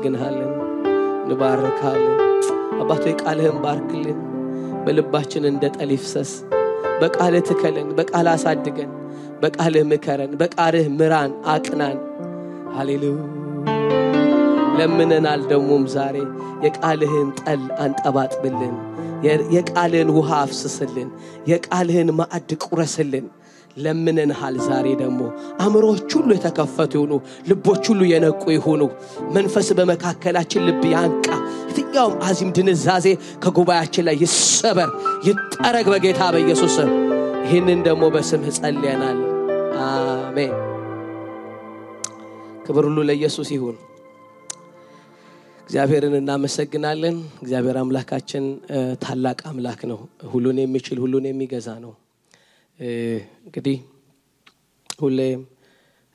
እናመሰግንሃለን እንባርካለን አባቴ ቃልህን ባርክልን በልባችን እንደ ጠል ይፍሰስ በቃልህ ትከለን በቃልህ አሳድገን በቃልህ ምከረን በቃልህ ምራን አቅናን ሃሌሉያ ለምነናል ደሞም ዛሬ የቃልህን ጠል አንጠባጥብልን የቃልህን ውሃ አፍስስልን የቃልህን ማዕድ ቁረስልን ለምነናል ዛሬ ደሞ አእምሮዎች ሁሉ የተከፈቱ ይሁኑ ልቦች ሁሉ የነቁ ይሁኑ መንፈስ በመካከላችን ልብ ያንቃ የትኛውም አዚም ድንዛዜ ከጉባኤያችን ላይ ይሰበር ይጠረግ በጌታ በኢየሱስ ስም ይህንን ደሞ በስምህ ጸልየናል አሜን ክብር ሁሉ ለኢየሱስ ይሁን እግዚአብሔርን እናመሰግናለን እግዚአብሔር አምላካችን ታላቅ አምላክ ነው ሁሉን የሚችል ሁሉን የሚገዛ ነው እንግዲህ ሁሌም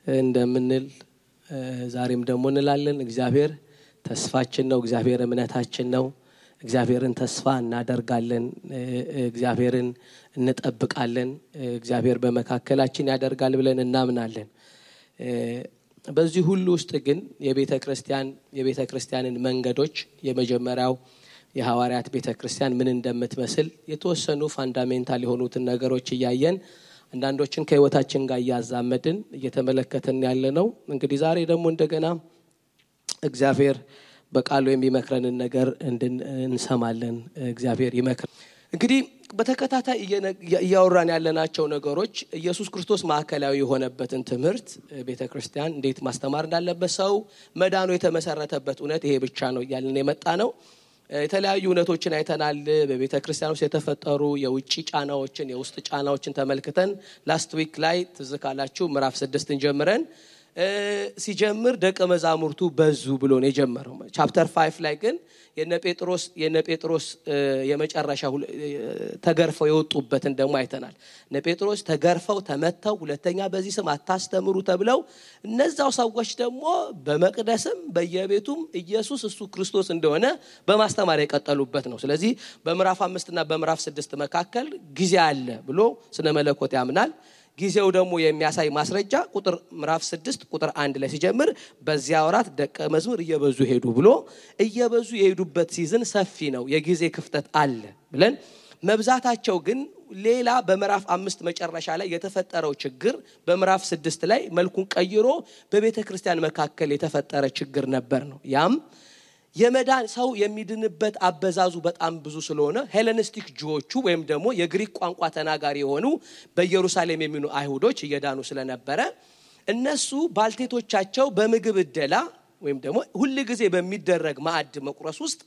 እንደምንል ዛሬም ደሞ እንላለን እግዚአብሔር ተስፋችን ነው እግዚአብሔር እምነታችን ነው እግዚአብሔርን ተስፋ እናደርጋለን እግዚአብሔርን እንጠብቃለን እግዚአብሔር በመካከላችን ያደርጋል ብለን እናምናለን በዚህ ሁሉ ውስጥ ግን የቤተክርስቲያንን መንገዶች የመጀመሪያው የሐዋርያት ቤተክርስቲያን ምን እንደምትመስል የተወሰኑ ፋንዳሜንታል የሆኑትን ነገሮች ያያየን አንዳንዶችን ከህይወታችን ጋር ያዛመድን እየተመለከተን ያለነው እንግዲህ ዛሬ ደግሞ እንደገና እግዚአብሔር በቃሉ የሚመክረንን ነገር እንሰማለን እግዚአብሔር ይመክር እንግዲህ በተከታታይ ያወራን ያለናቸው ነገሮች ኢየሱስ ክርስቶስ ማዕከላዊ የሆነበትን ትምህርት ቤተክርስቲያን እንዴት ማስተማር እንዳለበት ሰው መዳኑ የተመሰረተበት እውነት ይሄ ብቻ ነው ያልን የመጣ ነው የተለያዩ እውነቶችን አይተናል በቤተክርስቲያን ውስጥ የተፈጠሩ የውጪ ጫናዎችን የውስጥ ጫናዎችን ተመልክተን ላስት ዊክ ላይ ትዝካላችሁ ምዕራፍ 6ን ጀምረን ሲጀምር ደቀ መዛሙርቱ በዙ ብሎ ነው የጀመረው ቻፕተር 5 ላይ ግን የነ ጴጥሮስ የመጨረሻ ተገርፈው የወጡበትን ደሞ አይተናል እነ ጴጥሮስ ተገርፈው ተመተው ሁለተኛ በዚህ ስም አታስተምሩ ተብለው እነዛው ሰዎች ደሞ በመቅደስም በየቤቱም ኢየሱስ እሱ ክርስቶስ እንደሆነ በማስተማር የቀጠሉበት ነው ስለዚህ በምዕራፍ 5 እና በምዕራፍ 6 መካከል ጊዜ አለ ብሎ ስነ መለኮት ያምናል ጊዜው ደግሞ የሚያሳይ ማስረጃ ቁጥር ምዕራፍ 6 ቁጥር 1 ላይ ሲጀምር በዚያ ወራት ደቀ መዝሙር እየበዙ ሄዱ ብሎ እየበዙ የሄዱበት ሲዝን ሰፊ ነው የጊዜ ክፍተት አለ ብለን መብዛታቸው ግን ሌላ በምዕራፍ 5 መጨረሻ ላይ የተፈጠረው ችግር በምዕራፍ 6 ላይ መልኩን ቀይሮ በቤተክርስቲያን መካከል የተፈጠረ ችግር ነበር ነው ያም የመዳን ሰው የሚድንበት አበዛዙ በጣም ብዙ ስለሆነ ሄሌኒስቲክ ጁዎቹ ወይም ደግሞ የግሪክ ቋንቋ ተናጋሪ የሆኑ በኢየሩሳሌም የሚኖሩ አይሁዶች እየዳኑ ስለነበረ እነሱ ባልቴቶቻቸው በምግብ እደላ ወይም ደግሞ ሁሉ ጊዜ በሚደረግ ማዕድ መቁረስ ውስጥ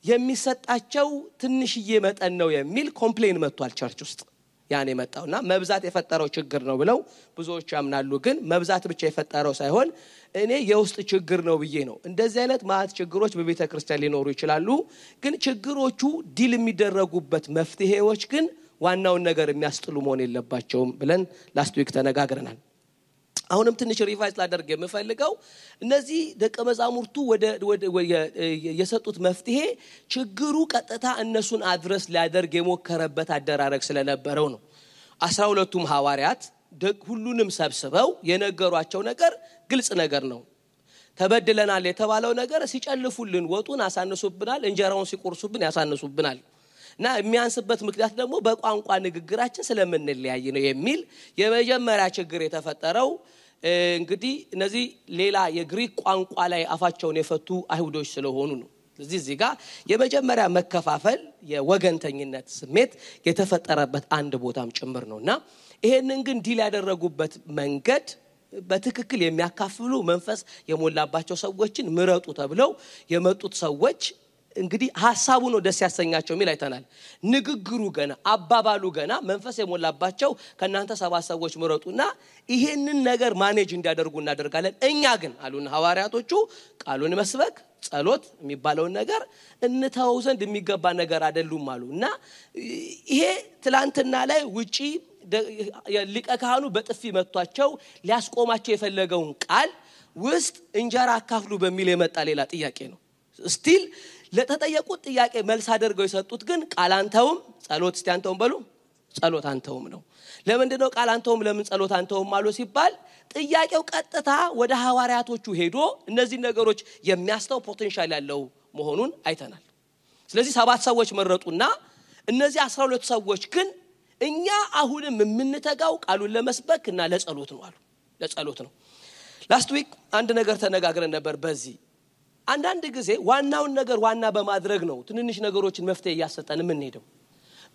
የሚሰጣቸው ትንሽዬ መጠን ነው የሚል ኮምፕሌን መጥቷል ቸርች ውስጥ ያኔ መጣውና መብዛት የፈጠረው ችግር ነው ብለው ብዙዎች ያምናሉ ግን መብዛት ብቻ የፈጠረው ሳይሆን እኔ የውስጥ ችግር ነው ብዬ ነው እንደዚህ አይነት ማዕት ችግሮች በቤተክርስቲያን ሊኖሩ ይችላሉ ግን ችግሮቹ ዲል የሚደረጉበት መፍትሄዎች ግን ዋናውን ነገር የሚያስጥሉ መሆን የለባቸውም ብለን ላስት ዊክ ተነጋግረናል አሁንም ትንሽ ሪቫይዝ ላደርግ የምፈልገው እነዚህ ደቀ መዛሙርቱ ወደ የሰጡት መፍትሄ ችግሩ ቀጥታ እነሱን አድረስ ሊያደርግ የሞከረበት አደራረግ ስለነበረው ነው 12ቱም ሐዋርያት ሁሉንም ሰብስበው የነገሯቸው ነገር ግልጽ ነገር ነው ተበድለናል የተባለው ነገር ሲጨልፉልን ወጡን አሳነሱብናል እንጀራውን ሲቆርሱብን ያሳነሱብናል እና የሚያንስበት ምክንያት ደግሞ በቋንቋ ንግግራችን ስለምንለያይ ነው የሚል የመጀመሪያ ችግር የተፈጠረው እንግዲህ እነዚህ ሌላ የግሪክ ቋንቋ ላይ አፋቸውን የፈቱ አይሁዶች ስለሆኑ ነው እዚህ ጋር የመጀመሪያ መከፋፈል የወገንተኝነት ስሜት የተፈጠረበት አንድ ቦታም ጭምር ነውና ይሄንን ግን ዲል ያደረጉበት መንገድ በትክክል የሚያካፍሉ መንፈስ የሞላባቸው ሰዎችን ምረጡ ተብለው የመጡት ሰዎች እንግዲህ ሐሳቡ ነው ደስ ያሰኛቸው ሚል አይተናል ንግግሩ ገና አባባሉ ገና መንፈስ የሞላባቸው ከናንተ 7 ሰዎች ምረጡና ይሄንን ነገር ማኔጅ እንዲያደርጉ እናደርጋለን እኛ ግን አሉን ሐዋርያቶቹ ቃሉን መስበክ ጸሎት የሚባለው ነገር እንተው ዘንድ የሚገባ ነገር አይደሉም አሉና ይሄ ትላንትና ላይ ውጪ ሊቀ ካህኑ በጥፊ መቷቸው ሊያስቆማቸው የፈለገውን ቃል ውስጥ እንጀራ አካፍሉ በሚል የመጣ ሌላ ጥያቄ ነው ስቲል ለተጠየቁት ጥያቄ መልስ አድርገው የሰጡት ግን ቃላንተውም ጸሎት እስቲ አንተውም በሉ ጸሎት አንተውም ነው። ለምንድነው ቃል አንተውም ለምን ጸሎት አንተውም አሉ ሲባል ጥያቄው ቀጥታ ወደ ሐዋርያቶቹ ሄዶ እነዚህ ነገሮች የሚያስተው ፖቴንሻል ያለው መሆኑን አይተናል። ስለዚህ 7 ሰዎች መረጡና እነዚህ 12 ሰዎች ግን እኛ አሁንም የምንተጋው ቃሉን ለመስበክና ለጸሎት ነው አሉ። ለጸሎት ነው። ላስት ዊክ አንድ ነገር ተነጋግረን ነበር። በዚህ አንዳንድ ጊዜ ዋናውን ነገር ዋና በማድረግ ነው ትንንሽ ነገሮችን መፍትሄ ያሰጠን የምንሄደው።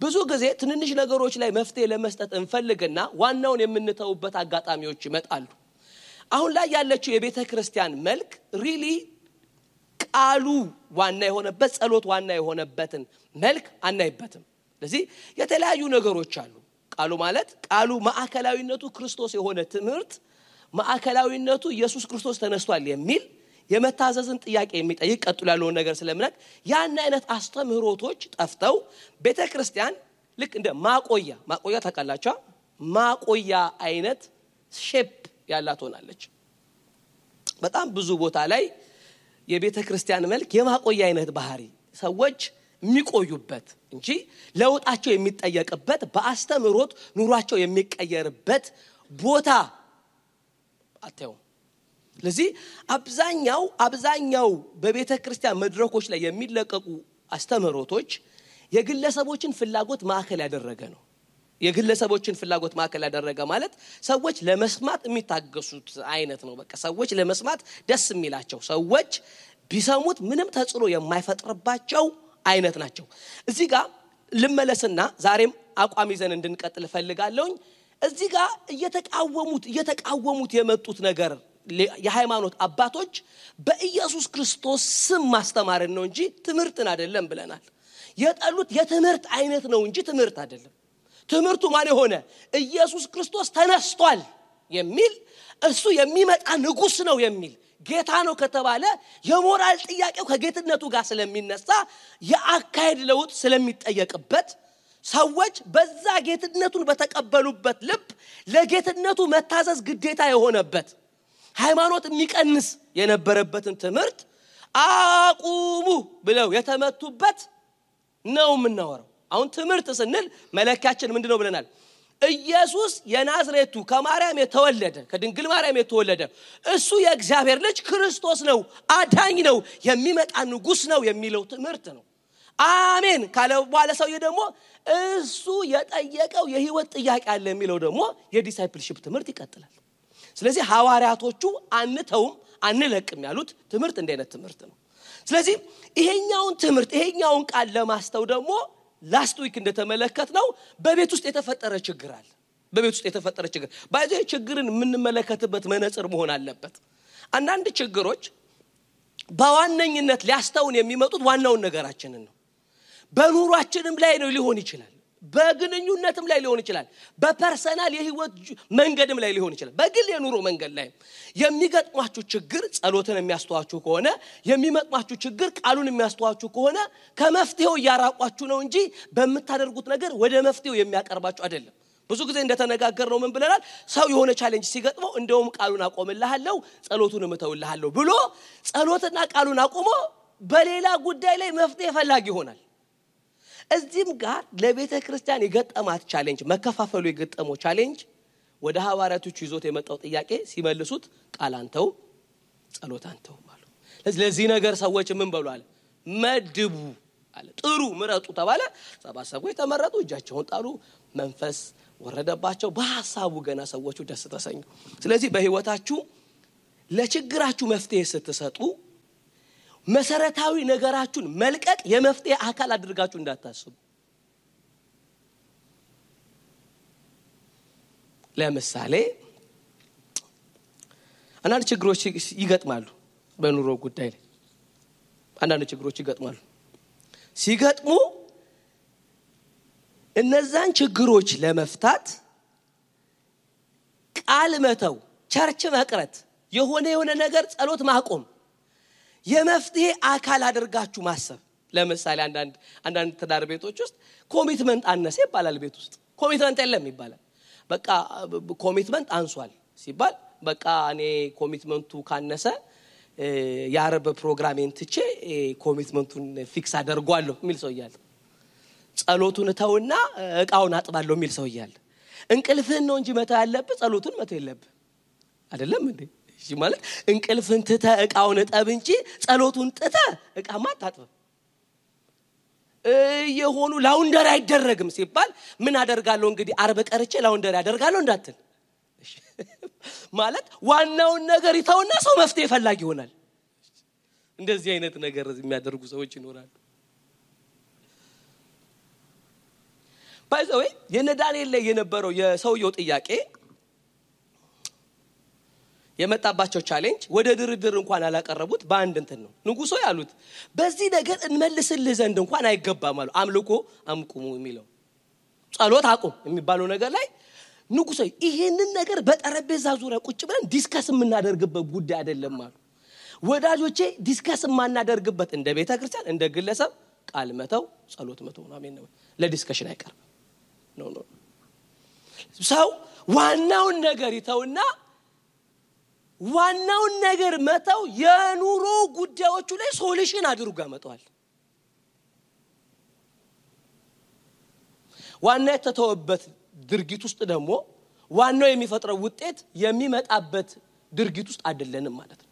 ብዙ ጊዜ ትንንሽ ነገሮች ላይ መፍትሄ ለመስጠት እንፈልግና ዋናውን የምንተውበት አጋጣሚዎች ይመጣሉ። አሁን ላይ ያለችው የቤተ ክርስቲያን መልክ ሪሊ ቃሉ ዋና የሆነበት ጸሎት ዋና የሆነበትን መልክ አናይበትም። ስለዚህ የተለያዩ ነገሮች አሉ። ቃሉ ማለት ቃሉ ማዕከላዊነቱ ክርስቶስ የሆነ ትምህርት ማዕከላዊነቱ ኢየሱስ ክርስቶስ ተነስቷል የሚል የመታዘዝን ጥያቄ የሚጠይቅ ቀጥሎ ያለው ነገር ስለምነክ ያን አይነት አስተምህሮቶች ጠፍተው ቤተክርስቲያን ልክ እንደ ማቆያ ታውቃላችሁ ማቆያ አይነት ሼፕ ያላት ሆናለች። በጣም ብዙ ቦታ ላይ የቤተክርስቲያን መልክ የማቆያ አይነት ባህሪ ሰዎች የሚቆዩበት እንጂ ለውጣቸው የሚጠየቅበት በአስተምህሮት ኑሯቸው የሚቀየርበት ቦታ አተው። ስለዚህ አብዛኛው በቤተክርስቲያን መድረኮች ላይ የሚለቀቁ አስተምህሮቶች የግለሰቦችን ፍላጎት ማዕከል ያደረገ ነው። የግለሰቦችን ፍላጎት ማዕከል ያደረገ ማለት ሰዎች ለመስማት የሚታገሱት አይነት ነው። በቃ ሰዎች ለመስማት ደስ የሚላቸው ሰዎች ቢሰሙት ምንም ተጽዕኖ የማይፈጥርባቸው አይነት ናቸው። እዚህ ጋር ልመለስና ዛሬም አቋም ይዘን እንድንቀጥል ፈልጋለሁ። እዚህ ጋር እየተቃወሙት የመጡት ነገር የሃይማኖት አባቶች በኢየሱስ ክርስቶስ ስም ማስተማርን ነው እንጂ ትምህርትን አይደለም ብለናል። የጠሉት የትምህርት አይነት ነው እንጂ ትምህርት አይደለም። ትምህርቱ ማን ሆነ? ኢየሱስ ክርስቶስ ተነስቷል የሚል እሱ የሚመጣ ንጉስ ነው የሚል ጌታ ነው ከተባለ የሞራል ጥያቄው ከጌትነቱ ጋር ስለሚነሳ የአካሄድ ለውጥ ስለሚጠየቅበት ሰዎች በዛ ጌትነቱን በተቀበሉበት ልብ ለጌትነቱ መታዘዝ ግዴታ የሆነበት ሃይማኖት የሚቀንስ የነበረበትን ትምህርት አቁሙ ብለው የተመቱበት ነው የምናወራው። አሁን ትምህርት ስንል መለካችን ምንድነው ብለናል? ኢየሱስ የናዝሬቱ ከማርያም የተወለደ ከድንግል ማርያም የተወለደ እሱ የእግዚአብሔር ልጅ ክርስቶስ ነው፣ አዳኝ ነው፣ የሚመጣ ንጉስ ነው የሚለው ትምህርት ነው። አሜን ካለ በኋላ ሰውዬ ደግሞ እሱ የጠየቀው የህይወት ጥያቄ አለ የሚለው ደግሞ የዲሳይፕልሺፕ ትምህርት ይቀጥላል። ስለዚህ ሐዋርያቶቹ አንተውም አንለቅም ያሉት ትምህርት እንደነት ትምህርት ነው። ስለዚህ ይሄኛውን ቃል ለማስተው ደግሞ ላስት ዊክ እንደተመለከትነው በቤት ውስጥ የተፈጠረ ችግር አለ። በቤት ውስጥ የተፈጠረ ችግር ባይዘይ ችግርን የምንመለከትበት መነጽር መሆን አለበት። አንዳንድ ችግሮች በዋነኝነት ሊያስተውን የሚመጡት ዋናውን ነገራችንን ነው። በኑሯችንም ላይ ነው ሊሆን ይችላል፣ በግንኙነትም ላይ ሊሆን ይችላል፣ በፐርሰናል የህይወት መንገድም ላይ ሊሆን ይችላል። በግል የኑሮ መንገድ ላይ የሚገጥማችሁ ችግር ጸሎትን የሚያስተዋችሁ ከሆነ የሚመጣችሁ ችግር ቃሉን የሚያስተዋችሁ ከሆነ ከመፍትሄው ያራቋችሁ ነው እንጂ በመታደርጉት ነገር ወደ መፍትሄው የሚያቀርባችሁ አይደለም። ብዙ ጊዜ እንደተነጋገርነው ምን ብለናል? ሰው የሆነ ቻሌንጅ ሲገጥመው እንደውም ቃሉን አቆምልሃለሁ ጸሎቱንም እተውልሃለሁ ብሎ ጸሎትና ቃሉን አቆሞ በሌላ ጉዳይ ላይ መፍትሄ ፈላጊ ይሆናል። እዚህም ጋር ለቤተ ክርስቲያን የገጠማት ቻሌንጅ መከፋፈሉ የገጠመው ቻሌንጅ ወደ ሐዋርያቶቹ ይዞት የመጣው ጥያቄ ሲመልሱት ቃል አንተው ጸሎት አንተው ማለት። ስለዚህ ነገር ሰዎች ምን በሉ አለ? መድቡ አለ። ጥሩ ምረጡ ተባለ። 7 ሰዎች ተመረጡ፣ እጃቸውን ጣሉ፣ መንፈስ ወረደባቸው። በሐሳቡ ገና ሰዎቹ ደስ ተሰኙ። ስለዚህ በህይወታችሁ ለችግራችሁ መፍትሄ ስትሰጡ መሰረታዊ ነገራችሁን መልቀቅ የመፍትሄ አካል አድርጋችሁ እንዳታስቡ። ለምሳሌ አንዳንድ ችግሮች ይገጥማሉ በኑሮ ጉዳይ ላይ አንዳንድ ችግሮች ይገጥማሉ። ሲገጥሙ እነዛን ችግሮች ለመፍታት ቃል መተው፣ ቸርች መቅረት፣ የሆነ ነገር ጸሎት ማቆም የመፍትሄ አካል አድርጋችሁ ማሰብ። ለምሳሌ አንዳንድ ትዳር ቤቶች ውስጥ ኮሚትመንት አነሰ ይባላል። ቤት ውስጥ ኮሚትመንት የለም ይባላል። በቃ ኮሚትመንት አንሷል ሲባል በቃ እኔ ኮሚትመንቱ ካነሰ የአረብ ፕሮግራሜን ትቼ ኮሚትመንቱን ፊክስ አደርጓለሁ የሚል ሰው ይያል። ጸሎቱን ተውና እቃውን አጥባለሁ የሚል ሰው ይያል እንቅልፍህን ነው እንጂ መተው ያለብህ ጸሎቱን መተው የለብህ አይደለም እንዴ እሺ ማለት እንቅልፍህን ትተህ እቃውን ጠብ እንጂ ጸሎቱን ጥተህ እቃማ አታጥብ የሆኑ ላውንደሪ አይደረግም ሲባል ምን አደርጋለሁ እንግዲህ አርብ ቀርቼ ላውንደሪ አደርጋለሁ እንዳትል ማለት ዋናውን ነገር ይተውና ሰው መፍትሄ ፈላጊ ይሆናል እንደዚህ አይነት ነገር የሚያደርጉ ሰዎች ይኖራሉ ባይዘው የነዳንኤል ላይ የነበረው የሰውየው ጥያቄ የመጣባቸው ቻሌንጅ ወደ ድርድር እንኳን አላቀረቡት በአንድ እንትን ነው ንጉሶ ያሉት በዚህ ነገር እንመልስልህ ዘንድ እንኳን አይገባም አሉ አምልኮ አምቁሙ የሚለው ጸሎት አቁም የሚባለው ነገር ላይ ንጉሶ ይሄንን ነገር በጠረጴዛ ዙሪያ ቁጭ ብለን ዲስከስ የምናደርግበት ጉዳይ አይደለም አሉ ወዳጆቼ ዲስከስ የማናደርግበት እንደ ቤተ ክርስቲያን እንደ ግለሰብ ቃል መተው ጸሎት መተው ነው አሜን ነው ለዲስከሽን አይቀርም ኖ ሰው ዋናውን ነገር ይተውና ዋናውን ነገር መተው የኑሮ ጉዳዮቹ ላይ ሶሉሽን አድርጎ ያመጣዋል ዋና የተተወበት ድርጊት ውስጥ ደግሞ ዋናው የሚፈጥረው ውጤት የሚመጣበት ድርጊት ውስጥ አይደለንም ማለት ነው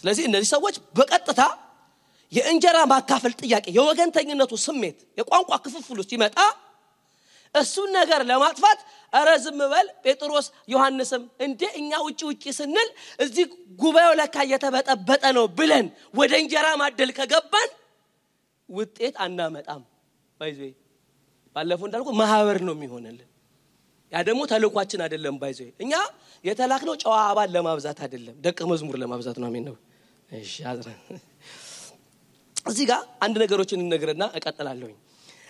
ስለዚህ እነዚህ ሰዎች በቀጥታ የእንጀራ ማካፈል ጥያቄ የወገንተኝነቱ ስሜት የቋንቋ ክፍፍሉ ሲመጣ እሱን ነገር ለማጥፋት አረዝም በል ጴጥሮስ ዮሐንስም እንደ እኛ ውጪ ስንል እዚህ ጉባኤው ለካ የተበጠበጠ ነው ብለን ወደ እንጀራ ማደል ከገባን ውጤት አናመጣም ባይዘይ ባለፈው እንዳልኩ ማህበር ነው የሚሆነልን ያ ደግሞ ተልኳችን አይደለም ባይዘይ እኛ የተላክነው ጨዋ አባል ለማብዛት አይደለም ደቀ መዝሙር ለማብዛት ነው አሜን ነው እሺ አዝራ እዚህ ጋር አንድ ነገሮችን እንነግርና እቀጥላለሁ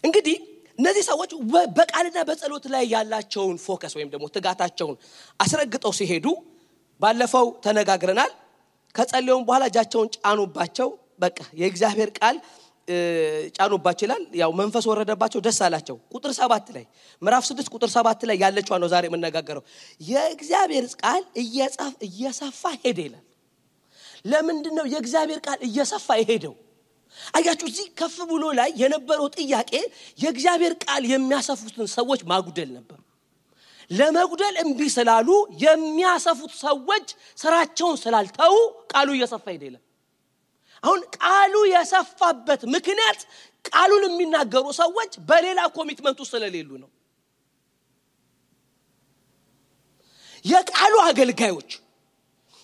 እንግዲህ እነዚህ ሰዎች በቃልና በጸሎት ላይ ያላቸውን ፎከስ ወይም ደግሞ ትጋታቸውን አስረግጠው ሲሄዱ ባለፈው ተነጋግረናል ከጸለዩም በኋላ እጃቸውን ጫኑባቸው በቃ የእግዚአብሔር ቃል ጫኑባቸው ይላል ያው መንፈስ ወረደባቸው ደስ አላቸው ቁጥር 7 ላይ ምዕራፍ 6 ቁጥር 7 ላይ ያለችው ነው ዛሬ የምንነጋገረው የእግዚአብሔር ቃል እየሰፋ ሄደ ይላል ለምንድነው የእግዚአብሔር ቃል እየሰፋ ይሄደው አያችሁ እዚህ ከፍ ብሎ ላይ የነበረው ጥያቄ የእግዚአብሔር ቃል የሚያሰፉትን ሰዎች ማጉደል ነበር ለመጉደል እንቢ ስላሉ የሚያሰፉት ሰዎች ስራቸውን ስላልተው ቃሉ እየሰፋ ሄደ አሁን ቃሉ የሰፋበት ምክንያት ቃሉን የሚናገሩ ሰዎች በሌላ ኮሚትመንት ውስጥ ስለሌሉ ነው የቃሉ አገልጋዮች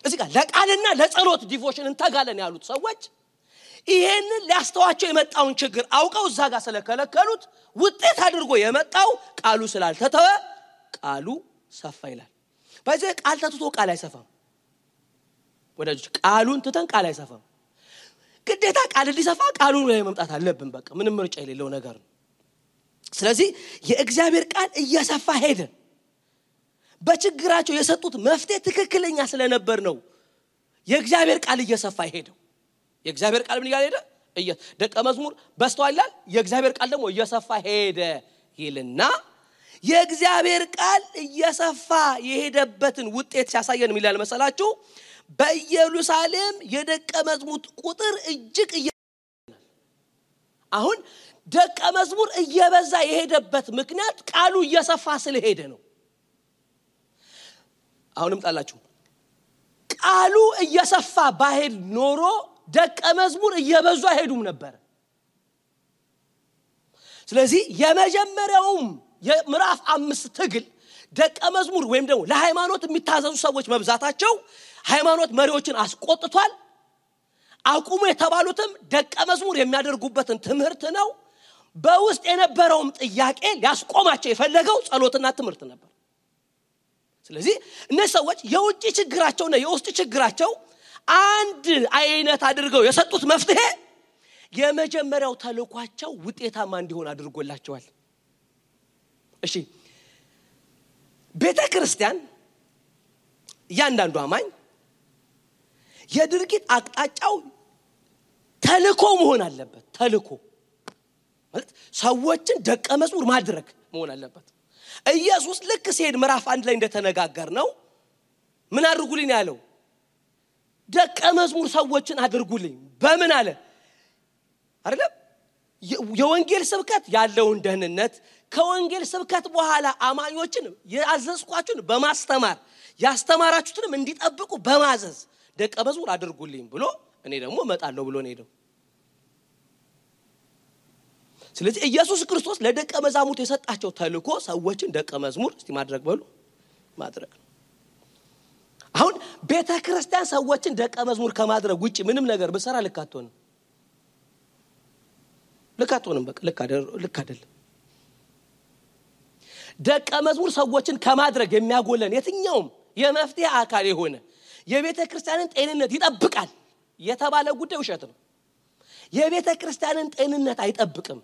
እዚህ ጋር ለቃልና ለጸሎት ዲቮሽን እንተጋለን ያሉት ሰዎች ይሄንን ሊያስተዋቸው የመጣውን ችግር አውቀው እዛ ጋር ስለከለከሉት ውጤት አድርጎ የመጣው ቃሉ ስላልተተወ ቃሉ ሰፋ ይላል በዚህ ቃል ተትቶ ቃል አይሰፋም ወዳጆች ቃሉን ትተን ቃል አይሰፋም ግዴታ ቃል ሊሰፋ ቃሉን ላይ መምጣት አለብን በቃ ምንም ምርጫ የሌለው ነገር ነው ስለዚህ የእግዚአብሔር ቃል እየሰፋ ሄደ በችግራቸው የሰጡት መፍትሄ ትክክለኛ ስለነበር ነው የእግዚአብሔር ቃል እየሰፋ ሄደው የእግዚአብሔር ቃል ምን ያለ ደቀ መዝሙር በስተዋላል የእግዚአብሔር ቃል ደግሞ እየሰፋ ሄደ ይልና የእግዚአብሔር ቃል እየሰፋ የሄደበትን ውጤት ሲያሳየን ምን ይላል መሰላችሁ በኢየሩሳሌም የደቀ መዝሙር ቁጥር እጅግ አሁን ደቀ መዝሙር እየበዛ የሄደበት ምክንያት ቃሉ እየሰፋ ስለሄደ ነው አሁንም ጣላችሁ ቃሉ እየሰፋ ባሄድ ኖሮ ደቀ መዝሙር እየበዙ አይሄዱም ነበር ስለዚህ የመጀመሪያውም የምዕራፍ 5 ትግል ደቀ መዝሙር ወይም ደግሞ ለሃይማኖት የሚታዘዙ ሰዎች መብዛታቸው ሃይማኖት መሪዎችን አስቆጥቷል አቁሙ የተባሉትም ደቀ መዝሙር የሚያደርጉበትን ትምህርት ነው በውስጥ የነበረውም ጥያቄ ሊያስቆማቸው የፈለገው ጸሎትና ትምህርት ነበር ስለዚህ እነዚህ ሰዎች የውጭ ችግራቸውና የውስጥ ችግራቸው አንድ አይነት አድርገው የሰጡት መፍትሄ የመጀመሪያው ተልኳቸው ውጤታማ እንዲሆን አድርጎላቸዋል እሺ ቤተ ክርስቲያን ያንዳንዱ አማኝ የድርጊት አቅጣጫው ተልኮ መሆን አለበት ተልኮ ማለት ሰዎችን ደቀ መዝሙር ማድረግ መሆን አለበት ኢየሱስ ልክ ሲሄድ ምዕራፍ 1 ላይ እንደተነጋገር ነው ምን አድርጉልኝ ያለው ደቀ መዝሙር ሰዎችን አድርጉልኝ በምን አለ አይደለም የወንጌል ስብከት ያለውን ደህንነት ከወንጌል ስብከት በኋላ አማኞችን ያዘዝኳችሁን በማስተማር ያስተማራችሁትንም እንዲጠብቁ በማዘዝ ደቀ መዝሙር አድርጉልኝ ብሎ እኔ ደግሞ እመጣለሁ ብሎ ነው ሄደው። ስለዚህ ኢየሱስ ክርስቶስ ለደቀ መዛሙርት የሰጣቸው ተልእኮ ሰዎችን ደቀ መዝሙር እስቲ ማድረግ በሉ ማድረግ። አሁን ቤተክርስቲያን ሰዎችን ደቀ መዝሙር ከማድረግ ውጪ ምንም ነገር በሰራ ልካቶን በቃ ልክ አይደለም። ደቀ መዝሙር ሰዎችን ከማድረግ የሚያጎለን የትኛውም የመፍትሄ አካል የሆነ የቤተክርስቲያንን ጤንነት ይጠብቃል የተባለ ጉዳይ ውሸት ነው። የቤተክርስቲያንን ጤንነት አይጠብቅም።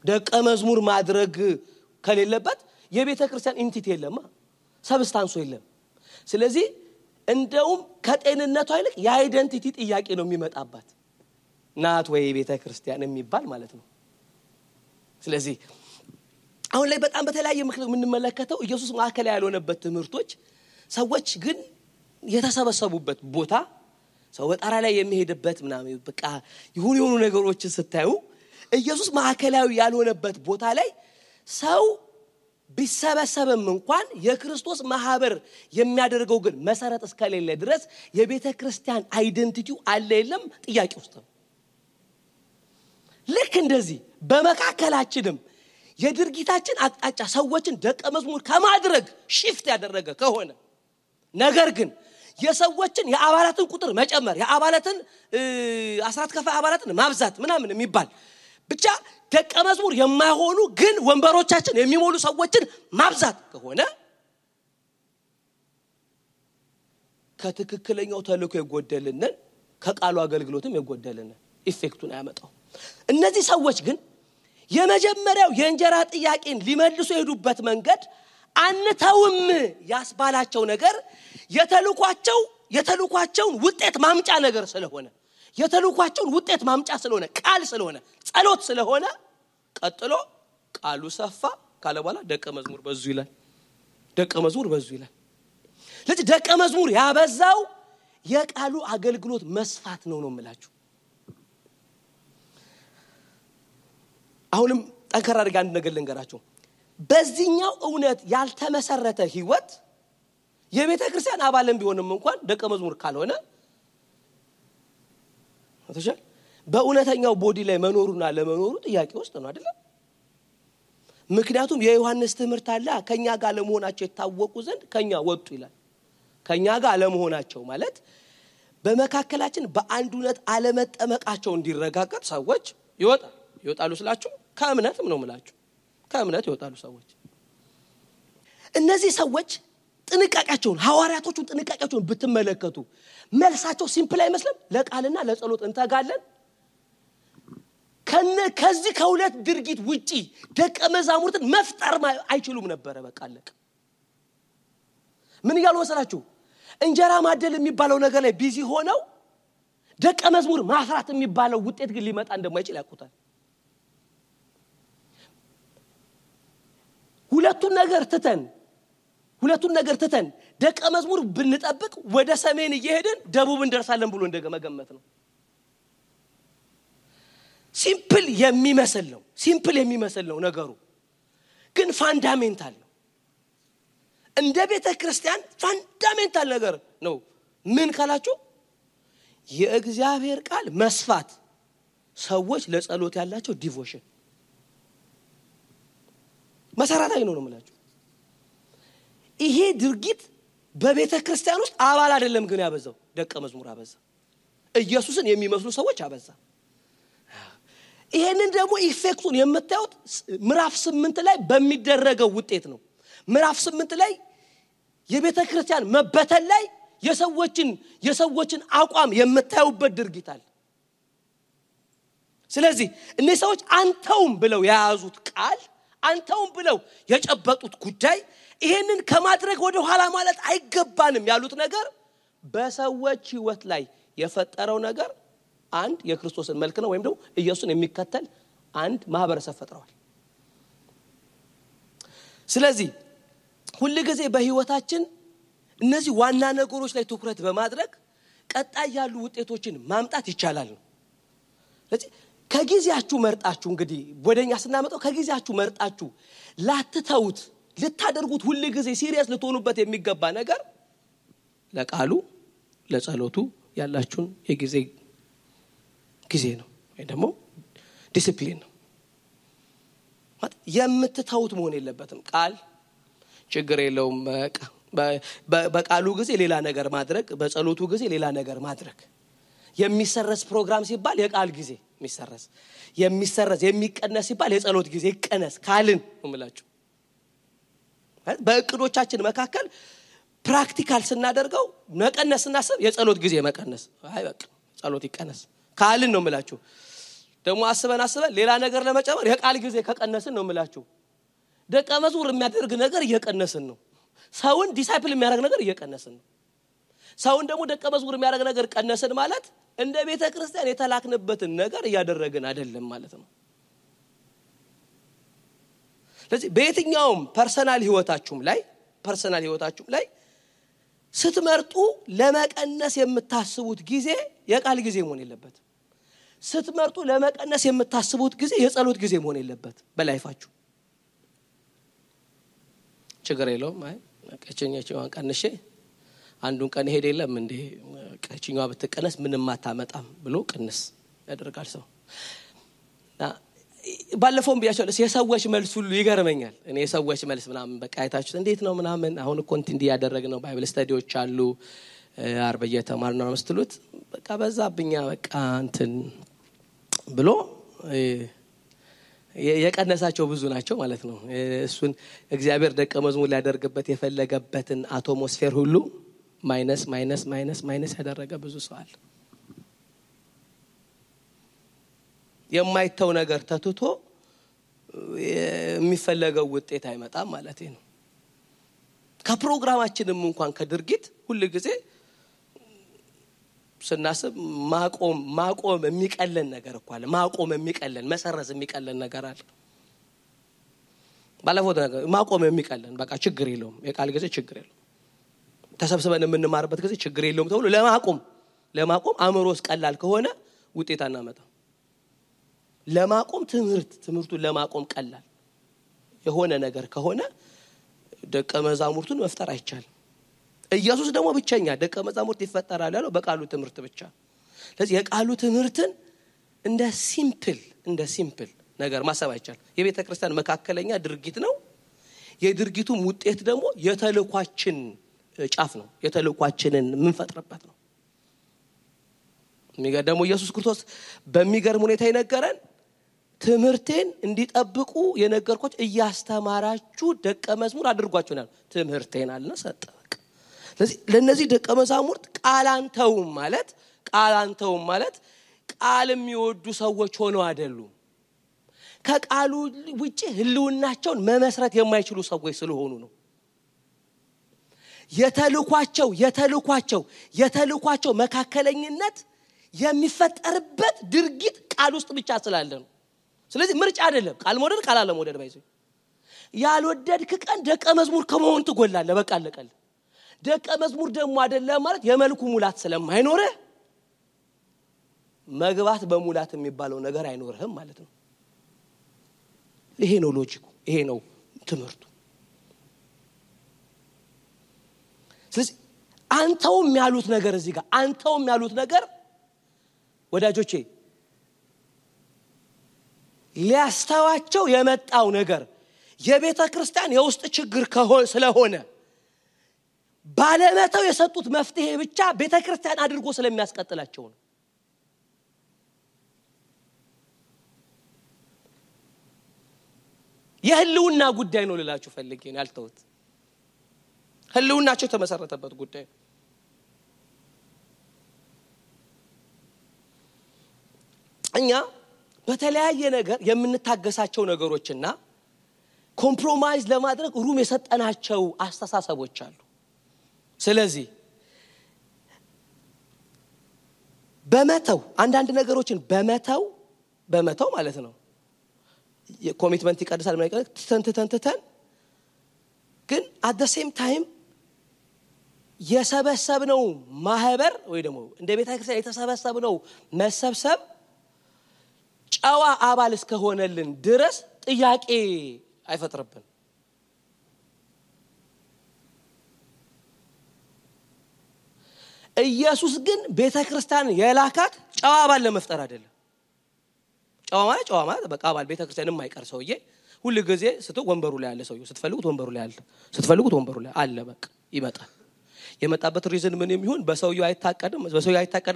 ደቀ መዝሙር ማድረግ ከሌለበት የቤተክርስቲያን ኢንቲቲ የለማ ሰብስታንሱ የለም። ስለዚህ እንደውም ከጤንነቷ ይልቅ የአይደንቲቲ ጥያቄ ነው የሚመጣባት ናት ወይ ቤተክርስቲያን የሚባል ማለት ነው። ስለዚህ አሁን ላይ በጣም በተለያየ ምክንያት የምንመለከተው ኢየሱስ ማዕከል ያልሆነበት ትምህርቶች ሰዎች ግን የተሰበሰቡበት ቦታ ሰው በጣራ ላይ የሚሄድበት ምናምን በቃ የሆኑ ነገሮችን ስታዩ ኢየሱስ ማዕከላዊ ያልሆነበት ቦታ ላይ ሰው ቢሰበሰብም እንኳን የክርስቶስ ማህበር የሚያደርገው ግን መሰረት እስከሌለ ድረስ የቤተክርስቲያን አይደንቲቲው አለ የለም ጥያቄ ውስጥ ነው። ልክ እንደዚህ በመካከላችንም የድርጊታችን አቅጣጫ ሰዎችን ደቀ መዝሙር ከማድረግ ሽፍት ያደረገ ከሆነ ነገር ግን የሰዎችን የአባላትን ቁጥር መጨመር የአባላትን አስራት ከፋይ አባላትን ማብዛት ምናምን የሚባል ብቻ ደቀ መዝሙር የማይሆኑ ግን ወንበሮቻችን የሚሞሉ ሰዎችን ማብዛት ከሆነ ከትክክለኛው ተልእኮ የጎደልነን ከቃሉ አገልግሎትም የጎደልነን ኢፌክቱን ያመጣው። እነዚህ ሰዎች ግን የመጀመሪያው የእንጀራ ጥያቄን ሊመልሱ የሄዱበት መንገድ አንተውም ያስባላቸው ነገር የተልኳቸውን ውጤት ማምጫ ነገር ስለሆነ የተልኳቸውን ውጤት ማምጫ ስለሆነ ቃል ስለሆነ ጸሎት ስለሆነ ቀጥሎ ቃሉ ሰፋ ካለ በኋላ ደቀ መዝሙር በዙ ይላል። ስለዚህ ደቀ መዝሙር ያበዛው የቃሉ አገልግሎት መስፋት ነው የምላችሁ። አሁንም ጠንከር አድርጌ አንድ ነገር ልንገራችሁ። በዚህኛው እውነት ያልተመሰረተ ህይወት የቤተክርስቲያን አባልም ቢሆንም እንኳን ደቀ መዝሙር ካልሆነ አትሻል በእውነተኛው ቦዲ ላይ መኖሩና ለመኖሩ ጥያቄ ውስጥ ነው አይደል? ምክንያቱም የዮሐንስ ትምህርት አለ ከኛ ጋር ለመሆናቸው የታወቁ ዘንድ ከኛ ወጡ ይላል። ከኛ ጋር ለመሆናቸው ማለት በመካከላችን በአንዱነት አለመጠመቃቸው እንዲረጋገጥ ሰዎች ይወጣሉ ስላችሁ ከእምነትም ነው የምላችሁ ከእምነት ይወጣሉ ሰዎች። እነዚህ ሰዎች ጥንቃቄያቸውን ሐዋርያቶቹን ጥንቃቄያቸውን ብትመለከቱ መልሳቸው ሲምፕል አይመስልም። ለቃልና ለጸሎት እንተጋለን ከዚህ ከሁለት ድርጊት ውጪ ደቀ መዛሙርትን መፍጠር አይችሉም ነበር። በቃ አለቀ። ምን ይያሉ መሰላችሁ? እንጀራ ማደል የሚባለው ነገር ላይ ቢዚ ሆነው ደቀ መዝሙር ማፍራት የሚባለው ውጤት ግን ሊመጣ እንደማይችል ያውቁታል። ሁለቱን ነገር ትተን ደቀ መዝሙር ብንጠብቅ ወደ ሰሜን እየሄድን ደቡብ እንደርሳለን ብሎ እንደገመገመት ነው። ሲምፕል የሚመስል ነው ነገሩ ግን ፋንዳሜንታል ነው። እንደ ቤተክርስቲያን ፋንዳሜንታል ነገር ነው። ምን ካላችሁ የእግዚአብሔር ቃል መስፋት ሰዎች ለጸሎት ያላቸው ዲቮሽን መሰረታዊ ነው የምላችሁ። ይሄ ድርጊት በቤተክርስቲያን ውስጥ አባል አይደለም ግን ያበዛው ደቀ መዝሙር አበዛ። ኢየሱስን የሚመስሉ ሰዎች አበዛ። ይሄንን ደግሞ ኢፌክቱን የምታዩት ምዕራፍ 8 ላይ በሚደረገው ውጤት ነው። ምዕራፍ 8 ላይ የቤተክርስቲያን መበተል ላይ የሰዎችን አቋም የምታዩበት ድርጊት አለ። ስለዚህ እነዚህ ሰዎች አንተውም ብለው ያያዙት ቃል አንተውም ብለው የጨበጡት ጉዳይ ይሄንን ከማድረግ ወደ ኋላ ማለት አይገባንም ያሉት ነገር በሰዎች ህይወት ላይ የፈጠረው ነገር አንድ የክርስቶስን መልክ ነው ወይም ደግሞ ኢየሱስን የሚከተል አንድ ማህበረሰብ ፈጥረዋል። ስለዚህ ሁሉ ጊዜ በህይወታችን እነዚህ ዋና ነገሮች ላይ ትኩረት በማድረግ ቀጣይ ያሉ ውጤቶችን ማምጣት ይቻላል ነው። ስለዚህ ከጊዜያችሁ መርጣችሁ እንግዲህ ወደኛ ስናመጣው ከጊዜያችሁ መርጣችሁ ላትተውት ልታደርጉት ሁሉ ጊዜ ሲሪየስ ልትሆኑበት የሚገባ ነገር ለቃሉ ለጸሎቱ ያላችሁን ጊዜ ነው ወይ ደግሞ ዲሲፕሊን ነው የምትተውት መሆን የለበትም ቃል ችግር የለውም በቃሉ ጊዜ ሌላ ነገር ማድረግ በጸሎቱ ጊዜ ሌላ ነገር ማድረግ የሚሰረስ ፕሮግራም ሲባል የቃል ጊዜ የሚሰረስ የሚቀነስ ሲባል የጸሎት ጊዜ ይቀነስ ካልን እምላችሁ በእቅዶቻችን መካከል ፕራክቲካል ስናደርገው መቀነስ እናስብ የጸሎት ጊዜ መቀነስ አይ በቃ ጸሎት ይቀነስ ካልን ነው እምላችሁ ደግሞ አስበን ሌላ ነገር ለመጨመር የቃል ጊዜ ከቀነስን ነው እምላችሁ ደቀ መዝሙር የሚያደርግ ነገር እየቀነስን ነው ሰውን ዲሳይፕል የሚያደርግ ነገር እየቀነስን ነው ሰውን ደግሞ ደቀ መዝሙር የሚያደርግ ነገር ቀነስን ማለት እንደ ቤተ ክርስቲያን የተላክንበትን ነገር እያደረግን አይደለም ማለት ነው ስለዚህ በየትኛውም ፐርሰናል ህይወታችሁም ላይ ስትመርጡ ለመቀነስ የምታስቡት ጊዜ የቃል ጊዜ መሆን የለበት ስትመርጡ ለመቀነስ የምታስቡት ጊዜ የጸሎት ጊዜ መሆን የለበት በላይፋችሁ ችግር የለውም አይ ቀጨኛቸውን ቀንሼ አንዱን ቀን ሄደ የለም እንዴ ቀጨኛዋ ብትቀነስ ምንም አታመጣም ብሎ ቅንስ ያደርጋል ሰው ባለፈው ቢያቸው የሰዎች መልስ ሁሉ ይገርመኛል እኔ የሰዎች መልስ ምናምን በቃ አይታችሁት እንዴት ነው ምናምን አሁን ኮንቲንዲ ያደረግነው ባይብል ስታዲዎች አሉ አርበየ ተማርና መስጥሉት በቃ በዛብኛ በቃ እንትን ብሎ የቀነሳቸው ብዙ ናቸው ማለት ነው እሱን እግዚአብሔር ደቀ መዝሙር ሊያደርግበት የፈለገበትን አትሞስፌር ሁሉ ማይነስ ያደረገ ብዙ ሰው አለ የማይተው ነገር ተትቶ የሚፈለገው ውጤት አይመጣም ማለት ነው ከፕሮግራማችንም እንኳን ከድርጊት ሁሉ ጊዜ ስናስብ ማቆም የሚቀለን ነገር እኮ አለ ማቆም የሚቀለን መሰረዝ የሚቀለን ነገር አለ ባለፈው ነገር ማቆም የሚቀለን በቃ ችግር የለውም የቃል ጊዜ ችግር የለውም ተሰብስበን የምንማርበት ጊዜ ችግር የለውም ተብሎ ለማቆም አእምሮስ ቀላል ከሆነ ውጤት አናመጣ ለማቆም ትምህርቱን ለማቆም ቀላል የሆነ ነገር ከሆነ ደቀ መዛሙርቱን መፍጠር አይቻልም ኢየሱስ ደግሞ ብቻኛ ደቀ መዛሙርት ይፈጠራል ያለው በቃሉ ትምህርት ብቻ ስለዚህ የቃሉ ትምህርትን እንደ ሲምፕል ነገር ማሰብ አይቻልም የቤተ ክርስቲያን መካከለኛ ድርጊት ነው የድርጊቱም ውጤት ደግሞ የተልኳችን ጫፍ ነው የተልኳችንን ምንፈጥርበት ነው የሚገርም ኢየሱስ ክርስቶስ በሚገርም ሁኔታ ይነገራል ትምህርቴን እንዲጠብቁ የነገርኳችሁ እያስተማራችሁ ደቀ መዝሙር አድርጓችሁናል ትምህርቴን አለና ሰጠ ስለዚህ ለነዚህ ደቀ መዛሙርት ቃላንተውም ማለት ቃል የሚወዱ ሰዎች ሆነው አይደሉም ከቃሉ ውጪ ህልውናቸውን መመስረት የማይችሉ ሰዎች ስለሆኑ ነው የተልኳቸው መካከለኝነት የሚፈጠርበት ድርጊት ቃል ውስጥ ብቻ ስላለ ነው ስለዚህ ምርጫ አይደለም ቃል መውደድ ቃል አለ መውደድ ባይዘ ያልወደድክ ቀን ደቀ መዝሙር ከመሆን ትጎላለህ በቃ አለቀል ደቀ መዝሙር ደግሞ አይደለም ማለት የመልኩ ሙላት ስለማይኖር መግባት በሙላት የሚባለው ነገር አይኖርህም ማለት ነው ይሄ ነው ሎጂኩ ይሄ ነው ትምህርቱ ስለዚህ አንተውም ያሉት ነገር እዚህ ጋር አንተውም ያሉት ነገር ወዳጆቼ ሊያስተዋቸው የመጣው ነገር የቤተ ክርስቲያን የውስጥ ችግር ስለሆነ ባለመተው የሰጡት መፍትሄ ብቻ ቤተ ክርስቲያን አድርጎ ስለሚያስቀጥላቸው ነው የህልውና ጉዳይ ነው ልላችሁ ፈልጌ ነው ያልተውት ህልውናቸው ተመሰረተበት ጉዳይ እኛ በተለያየ ነገር የምንታገሳቸው ነገሮችና ኮምፕሮማይዝ ለማድረግ ሩም የሰጠናቸው አስተሳሰቦች አሉ ስለዚህ በመተው አንዳንድ ነገሮችን በመተው ማለት ነው የኮሚትመንት ይቀድሳል ማለት ተንተን ግን at the same time የሰበሰብነው ማህበር ወይ ደግሞ እንደ ቤተ ክርስቲያን የተሰበሰብነው መሰብሰብ ጨዋ አባል እስከሆነልን ድረስ ጥያቄ አይፈጥርብን። ኢየሱስ ግን ቤተክርስቲያን የላካት ጨዋ አባል ለመፍጠር አይደለም። ጨዋ ማለት በቃ አባል ቤተክርስቲያን የማይቀር ሰውዬ ሁሉ ጊዜ ወንበሩ ላይ ያለ ሰውዬ ስትፈልጉት ወንበሩ ላይ አለ፣ ስትፈልጉት ወንበሩ ላይ አለ፣ በቃ ይመጣል። የመጣበት ሪዝን ምን የሚሆን በሰውዬው አይታቀድም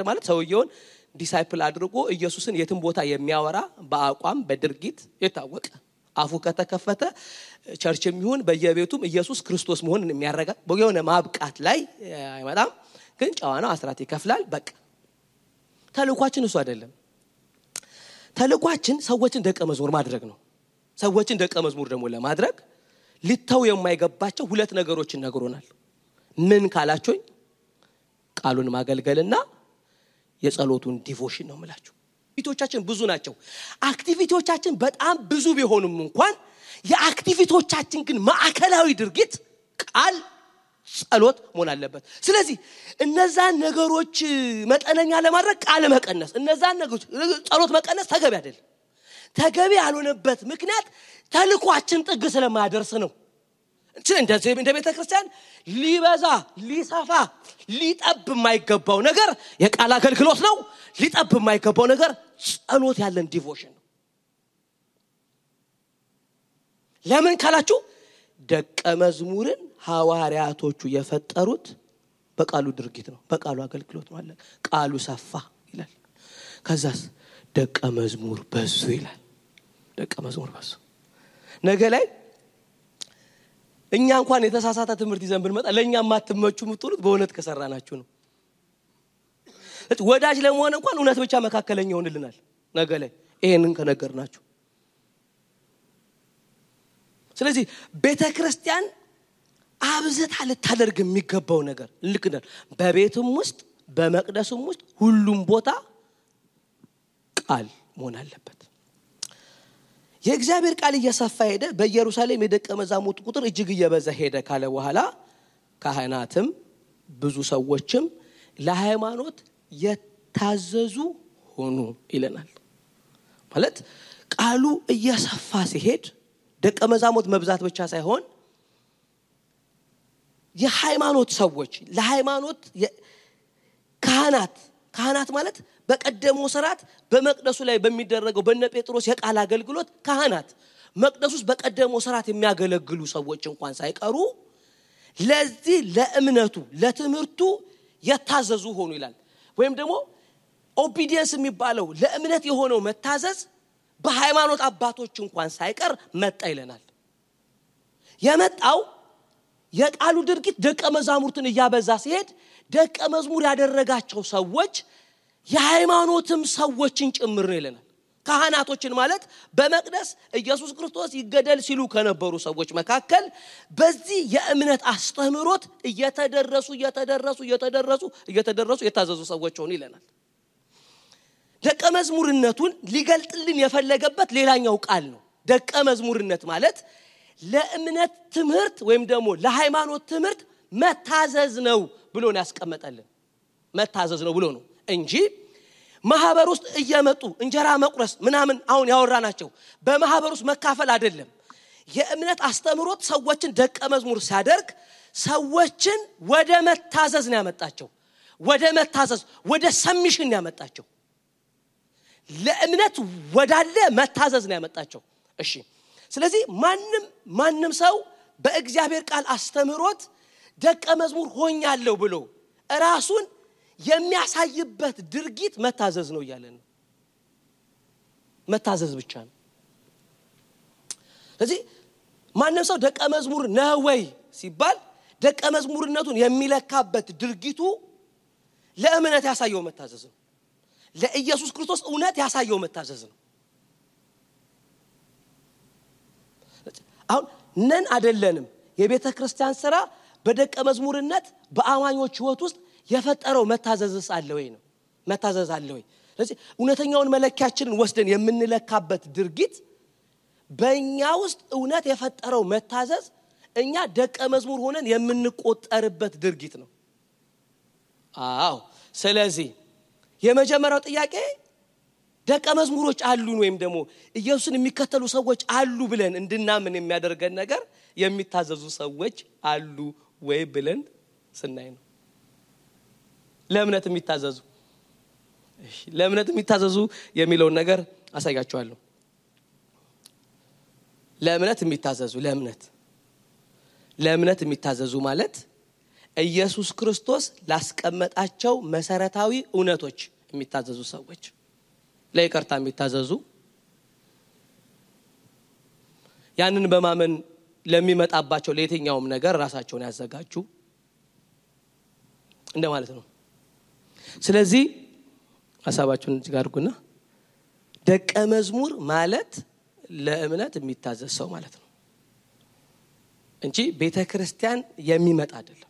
ማለት ሰውዬውን ዲሳይፕል አድርጎ ኢየሱስን የትም ቦታ የሚያወራ በአቋም በድርጊት የታወቀ አፉ ከተከፈተ ቸርችም ይሁን በየቤቱም ኢየሱስ ክርስቶስ መሆኑን የሚያረጋግጥ በየሆነ ማብቃት ላይ አይመጣም። ግን ጨዋ ነው፣ አስራት ይከፍላል። በቃ ተልኳችን እሱ አይደለም። ተልኳችን ሰዎችን ደቀ መዝሙር ማድረግ ነው። ሰዎችን ደቀ መዝሙር ደግሞ ለማድረግ ሊተው የማይገባቸው ሁለት ነገሮችን ነግሮናል። ምን ካላችሁኝ ቃሉን ማገልገልና የጸሎቱን ዲቮሽን ነው ማለት ነው። አክቲቪቲዎቻችን ብዙ ናቸው። አክቲቪቲዎቻችን በጣም ብዙ ቢሆኑም እንኳን የአክቲቪቲዎቻችን ግን ማዕከላዊ ድርጊት ቃል ጸሎት መሆን አለበት። ስለዚህ እነዛን ነገሮች መጠነኛ ለማድረግ ቃል መቀነስ፣ እነዛን ነገሮች ጸሎት መቀነስ ተገቢ አይደለም። ተገቢ ያልሆነበት ምክንያት ተልኳችን ጥግ ስለማያደርስ ነው። እንደዚህ እንደ ቤተክርስቲያን ሊበዛ ሊሰፋ ሊጠብ የማይገባው ነገር የቃል አገልግሎት ነው። ሊጠብ የማይገባው ነገር ጸሎት ያለን ዲቮሽን ነው። ለምን ካላችሁ ደቀ መዝሙርን ሐዋርያቶቹ የፈጠሩት በቃሉ ድርጊት ነው፣ በቃሉ አገልግሎት ነው አለ። ቃሉ ሰፋ ይላል። ከዛስ ደቀ መዝሙር በዙ ይላል። ደቀ መዝሙር በዙ። ነገ ላይ እኛ እንኳን የተሳሳተ ትምህርት ይዘን ብንመጣ ለኛ ማትመቹ ምትሉት በእውነት ከሰራናችሁ ነው። ወዳጅ ለመሆን እንኳን እውነት ብቻ መካከለኛ ሆነልናል ነገ ላይ ይሄንን ከነገርናችሁ። ስለዚህ ቤተክርስቲያን አብዝታ ልታደርግ የሚገባው ነገር ልክ እንደ በቤቱም ውስጥ በመቅደሱም ውስጥ ሁሉም ቦታ ቃል መሆን አለበት። የእግዚአብሔር ቃል እየሰፋ ሄደ። በኢየሩሳሌም የደቀ መዛሙርት ቁጥር እጅግ እየበዛ ሄደ ካለ በኋላ ካህናትም ብዙ ሰዎችም ለሃይማኖት የታዘዙ ሆኑ ይለናል። ማለት ቃሉ እየሰፋ ሲሄድ ደቀ መዛሙርት መብዛት ብቻ ሳይሆን የሃይማኖት ሰዎች ለሃይማኖት ካህናት ማለት በቀደመው ሥርዓት በመቅደሱ ላይ በሚደረገው በነ ጴጥሮስ የቃል አገልግሎት ካህናት መቅደሱስ በቀደመው ሥርዓት የሚያገለግሉ ሰዎች እንኳን ሳይቀሩ ለዚህ ለእምነቱ ለትምህርቱ የታዘዙ ሆኑ ይላል። ወይም ደግሞ ኦቢዲየንስ የሚባለው ለእምነት የሆነው መታዘዝ በሃይማኖት አባቶች እንኳን ሳይቀር መጣ ይለናል። የመጣው የቃሉ ድርጊት ደቀ መዛሙርትን እያበዛ ሲሄድ ደቀ መዝሙር ያደረጋቸው ሰዎች የሃይማኖትም ሰዎችን ጭምር ነው ይለናል። ካህናቶችን ማለት በመቅደስ ኢየሱስ ክርስቶስ ይገደል ሲሉ ከነበሩ ሰዎች መካከል በዚህ የእምነት አስተምህሮት እየተደረሱ የታዘዙ ሰዎች ሆኑ ይለናል። ደቀ መዝሙርነቱን ሊገልጥልን የፈለገበት ሌላኛው ቃል ነው። ደቀ መዝሙርነት ማለት ለእምነት ትምህርት ወይም ደግሞ ለሃይማኖት ትምህርት መታዘዝ ነው ብሎ ነው ያስቀመጠልን። መታዘዝ ነው ብሎ ነው እንጂ ማህበር ውስጥ እየመጡ እንጀራ መቁረስ ምናምን አሁን ያወራናቸው በማህበር ውስጥ መካፈል አይደለም። የእምነት አስተምህሮት ሰዎችን ደቀ መዝሙር ሲያደርግ ሰዎችን ወደ መታዘዝ ነው ያመጣቸው። ወደ መታዘዝ ወደ ሰሚሽን ነው ያመጣቸው። ለእምነት ወዳለ መታዘዝ ነው ያመጣቸው። እሺ ስለዚህ ማንም ሰው በእግዚአብሔር ቃል አስተምህሮት ደቀ መዝሙር ሆኛለሁ ብሎ ራሱን የሚያሳይበት ድርጊት መታዘዝ ነው ይላል ነው። መታዘዝ ብቻ ነው። ስለዚህ ማንም ሰው ደቀ መዝሙር ነው ወይ ሲባል ደቀ መዝሙርነቱን የሚለካበት ድርጊቱ ለእምነት ያሳየው መታዘዝ ነው። ለኢየሱስ ክርስቶስ እውነት ያሳየው መታዘዝ ነው። አሁን ነን አይደለንም የቤተ ክርስቲያን ሥራ በደቀ መዝሙርነት በአማኞች ህይወት ውስጥ የፈጠረው መታዘዝስ አለ ወይ ነው። መታዘዝ አለ ወይ? ስለዚህ እውነተኛውን መለኪያችንን ወስደን የምንለካበት ድርጊት በእኛ ውስጥ እውነት የፈጠረው መታዘዝ እኛ ደቀ መዝሙር ሆነን የምንቆጠርበት ድርጊት ነው። አዎ ስለዚህ የመጀመሪያው ጥያቄ ደቀ መዝሙሮች አሉን ወይም ደግሞ ኢየሱስን የሚከተሉ ሰዎች አሉ ብለን እንድናምን የሚያደርገን ነገር የሚታዘዙ ሰዎች አሉ ወይ ብለን ስናይ ነው። ለእምነት የሚታዘዙ የሚለውን ነገር አሳያችኋለሁ። ለእምነት የሚታዘዙ ማለት ኢየሱስ ክርስቶስ ላስቀመጣቸው መሰረታዊ እውነቶች የሚታዘዙ ሰዎች፣ ለይቅርታ የሚታዘዙ፣ ያንን በማመን ለሚመጣባቸው ለየትኛውም ነገር ራሳቸውን ያዘጋጁ እንደማለት ነው። ስለዚህ ሐሳባችሁን እዚህ ጋር አድርጉና ደቀ መዝሙር ማለት ለእምነት የሚታዘዝ ሰው ማለት ነው እንጂ ቤተክርስቲያን የሚመጣ አይደለም።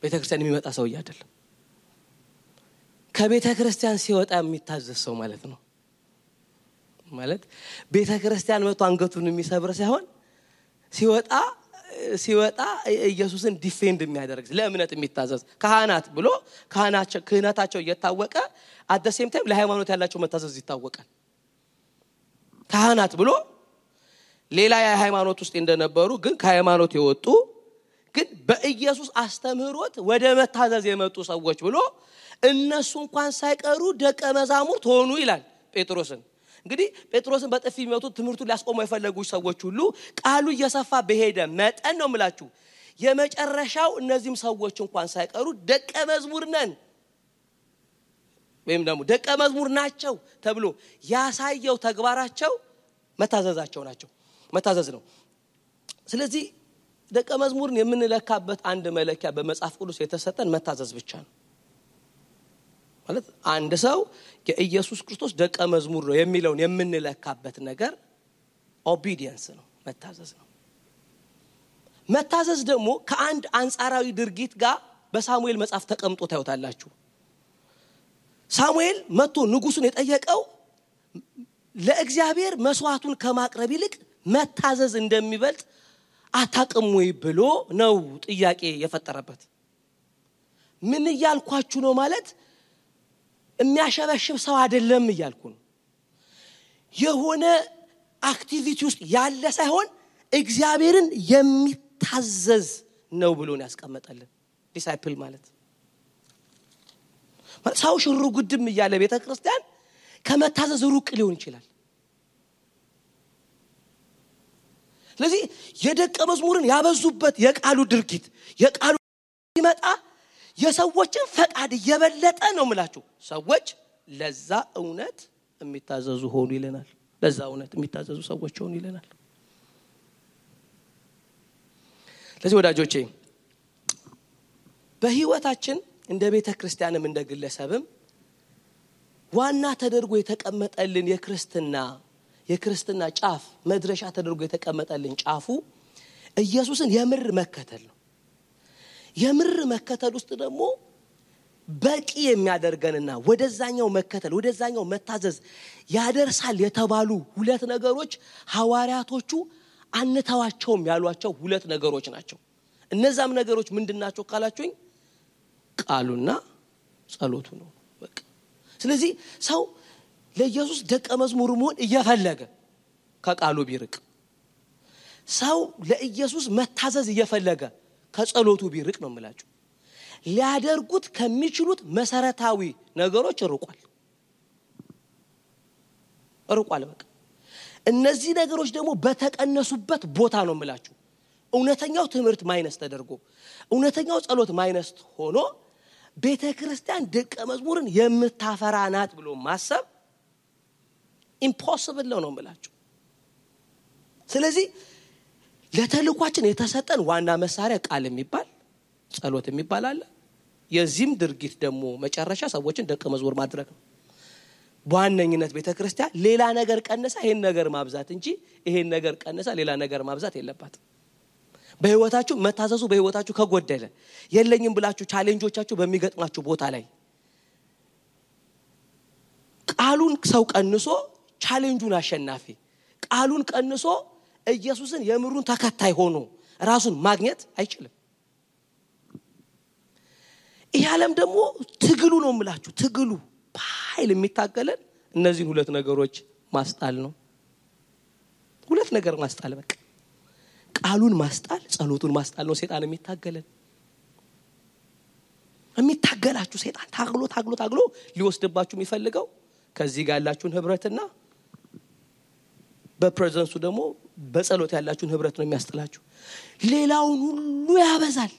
ቤተክርስቲያን የሚመጣ ሰው አይደለም። ከቤተክርስቲያን ሲወጣ የሚታዘዝ ሰው ማለት ነው። ማለት ቤተክርስቲያን መጥቶ አንገቱን የሚሰብር ሳይሆን ሲወጣ ኢየሱስን ዲፌንድ የሚያደርግ ለእምነት የሚታዘዝ ካህናት ብሎ ክህነታቸው እየታወቀ at the same time ለሃይማኖት ያላቸው መታዘዝ ይታወቃል። ካህናት ብሎ ሌላ የሃይማኖት ውስጥ እንደነበሩ ግን ከሃይማኖት የወጡ ግን በኢየሱስ አስተምህሮት ወደ መታዘዝ የመጡ ሰዎች ብሎ እነሱ እንኳን ሳይቀሩ ደቀ መዛሙርት ሆኑ ይላል ጴጥሮስን። እንግዲህ ጴጥሮስን በጥፊ የሚመቱት ትምህርቱን ሊያስቆሙ የፈለጉ ሰዎች ሁሉ ቃሉ እየሰፋ በሄደ መጠን ነው የምላችሁ የመጨረሻው እነዚህም ሰዎች እንኳን ሳይቀሩ ደቀ መዝሙር ነን ወይም ደግሞ ደቀ መዝሙር ናቸው ተብሎ ያሳየው ተግባራቸው መታዘዝ ነው። ስለዚህ ደቀ መዝሙርን የምንለካበት አንድ መለኪያ በመጽሐፍ ቅዱስ የተሰጠን መታዘዝ ብቻ ነው። ማለት አንድ ሰው የኢየሱስ ክርስቶስ ደቀ መዝሙር ነው የሚለውን የምንለካበት ነገር ኦቢዲየንስ ነው፣ መታዘዝ ነው። መታዘዝ ደግሞ ከአንድ አንጻራዊ ድርጊት ጋር በሳሙኤል መጽሐፍ ተቀምጦ ታዩታላችሁ። ሳሙኤል መጥቶ ንጉሱን የጠየቀው ለእግዚአብሔር መስዋዕቱን ከማቅረብ ይልቅ መታዘዝ እንደሚበልጥ አታውቅም ወይ ብሎ ነው ጥያቄ የፈጠረበት። ምን እያልኳችሁ ነው ማለት የሚያሸበሽብ ሰው አይደለም እያልኩ ነው። የሆነ አክቲቪቲ ውስጥ ያለ ሳይሆን እግዚአብሔርን የሚታዘዝ ነው ብሎ ነው ያስቀመጠልን ዲሳይፕል ማለት ሰው ሽሩ ጉድም እያለ ቤተክርስቲያን ከመታዘዝ ሩቅ ሊሆን ይችላል። ስለዚህ የደቀ መዝሙርን ያበዙበት የቃሉ ድርጊት የቃሉ ይመጣ የሰዎችን ፈቃድ እየበለጠ ነው የምላችሁ ሰዎች ለዛ እውነት የሚታዘዙ ሆኑ ይለናል። ለዛ እውነት የሚታዘዙ ሰዎች ሆኑ ይለናል። ስለዚህ ወዳጆቼ በህይወታችን እንደ ቤተክርስቲያንም እንደ ግለሰብም ዋና ተደርጎ የተቀመጠልን የክርስትና ጫፍ መድረሻ ተደርጎ የተቀመጠልን ጫፉ ኢየሱስን የምር መከተል ነው። የምር መከተል ውስጥ ደግሞ በቂ የሚያደርገንና ወደዛኛው መታዘዝ ያደርሳል የተባሉ ሁለት ነገሮች ሐዋርያቶቹ አንተዋቸውም ያሏቸው ሁለት ነገሮች ናቸው። እነዛም ነገሮች ምንድናቸው ካላችሁኝ ቃሉና ጸሎቱ ነው በቃ። ስለዚህ ሰው ለኢየሱስ ደቀ መዝሙር መሆን እየፈለገ ከቃሉ ቢርቅ፣ ሰው ለኢየሱስ መታዘዝ እየፈለገ ከጸሎቱ ቢርቅ ነው የምላችሁ ሊያደርጉት ከሚችሉት መሰረታዊ ነገሮች ርቋል በቃ። እነዚህ ነገሮች ደግሞ በተቀነሱበት ቦታ ነው የምላችሁ እውነተኛው ትምህርት ማይነስ ተደርጎ እውነተኛው ጸሎት ማይነስ ሆኖ ቤተክርስቲያን ደቀ መዝሙርን የምታፈራናት ብሎ ማሰብ ኢምፖሲብል ነው የምላችሁ። ስለዚህ ለተልኳችን የተሰጠን ዋና መሳሪያ ቃል የሚባል ጸሎት የሚባል አለ። የዚህም ድርጊት ደግሞ መጨረሻ ሰዎችን ደቀ መዝሙር ማድረግ ነው። በዋነኝነት ቤተክርስቲያን ሌላ ነገር ቀነሳ ይሄን ነገር ማብዛት እንጂ ይሄን ነገር ቀነሳ ሌላ ነገር ማብዛት የለባትም። በህይወታችሁ መታዘዙ በህይወታችሁ ከጎደለ የለኝም ብላችሁ ቻሌንጆቻችሁ በሚገጥማችሁ ቦታ ላይ ቃሉን ሰው ቀንሶ ቻሌንጁን አሸናፊ ቃሉን ቀንሶ ኢየሱስን የምሩን ተከታይ ሆኖ ራሱን ማግኘት አይችልም። ይሄ ዓለም ደግሞ ትግሉ ነው የምላችሁ ትግሉ በኃይል የሚታገለን እነዚህ ሁለት ነገሮች ማስጣል ነው ሁለት ነገር ማስጣል በቃ ቃሉን ማስጣል ጸሎቱን ማስጣል ነው ሰይጣን የሚታገላችሁ ሰይጣን ታግሎ ሊወስድባችሁ የሚፈልገው ከዚህ ጋር ያላችሁን ህብረትና በፕሬዘንሱ ደግሞ በጸሎት ያላችሁን ህብረት ነው የሚያስጥላችሁ ሌላውን ሁሉ ያበዛል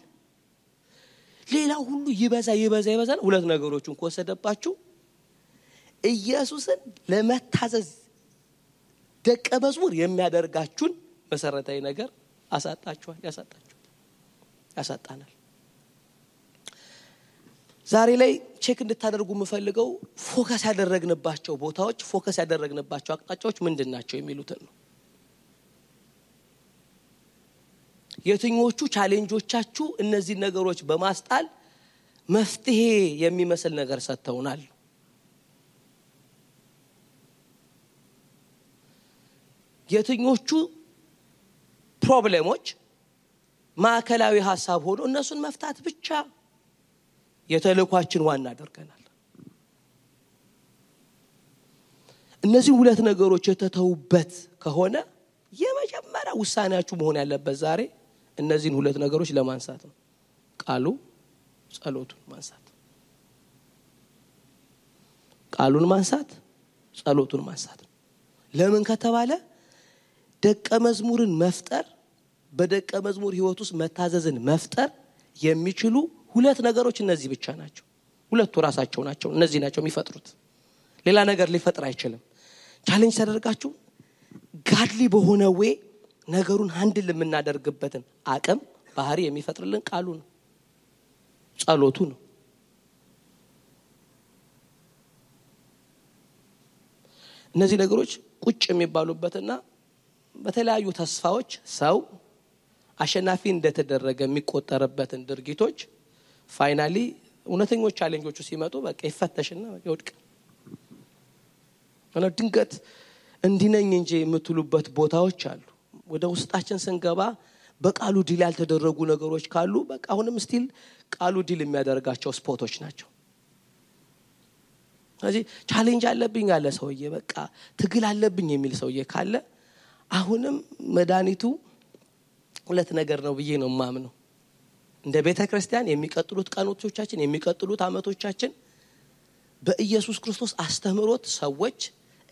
ሌላው ሁሉ ይበዛል ሁለት ነገሮችን ከወሰደባችሁ ኢየሱስን ለመታዘዝ ደቀ መዝሙር የሚያደርጋችሁን መሰረታዊ ነገር ያሳጣናል ዛሬ ላይ ቼክ እንድታደርጉ የምፈልገው ፎከስ ያደረግንባቸው ቦታዎች ፎከስ ያደረግንባቸው አቅጣጫዎች ምንድናቸው የሚሉትን ነው የትኞቹ ቻሌንጆቻችሁ እነዚህ ነገሮች በማስጣል መፍትሄ የሚመስል ነገር ሰጥተውናል የትኞቹ ፕሮብሌሞች ማዕከላዊ ሐሳብ ሆኖ እነሱን መፍታት ብቻ የተልኳችን ዋና አድርገናል እነዚህ ሁለት ነገሮች የተተውበት ከሆነ የመጀመሪያ ውሳኔያችሁ መሆን ያለበት ዛሬ እነዚህን ሁለት ነገሮች ለማንሳት ነው ቃሉ ጸሎቱን ማንሳት ቃሉን ማንሳት ጸሎቱን ማንሳት ለምን ከተባለ ደቀ መዝሙርን መፍጠር በደቀ መዝሙር ህይወት ውስጥ መታዘዝን መፍጠር የሚችሉ ሁለት ነገሮች እነዚህ ብቻ ናቸው ሁለቱ ራሳቸው ናቸው እነዚህ ናቸው የሚፈጥሩት ሌላ ነገር ሊፈጥር አይችልም ቻሌንጅ ተደርጋችሁ ጋድሊ በሆነ ወይ ነገሩን ሃንድል የምናደርግበትን አቅም ባህሪ የሚፈጥርልን ቃሉ ነው ጸሎቱ ነው እነዚህ ነገሮች ቁጭ የሚባሉበትና በተለያዩ ተስፋዎች ሰው አሸናፊ እንደተደረገ የሚቆጠርበትን ድርጊቶች ፋይናሊ እውነተኞች ቻሌንጆቹ ሲመጡ በቃ ይፈተሽና ይወድቅ እና ድንገት እንዲነኝ እንጂ የምትሉበት ቦታዎች አሉ ወደ ውስጣችን ስንገባ በቃሉ ዲል ያልተደረጉ ነገሮች ካሉ በቃ አሁንም ስቲል ቃሉ ዲል የሚያደርጋቸው ስፖቶች ናቸው ስለዚህ ቻሌንጅ አለብኝ ያለ ሰውዬ በቃ ትግል አለብኝ የሚል ሰውዬ ካለ አሁንም መድኃኒቱ ሁለት ነገር ነው ብዬ ነው ማምነው እንደ ቤተክርስቲያን የሚቀጥሉት ቀኖቻችን የሚቀጥሉት አመቶቻችን በኢየሱስ ክርስቶስ አስተምሮት ሰዎች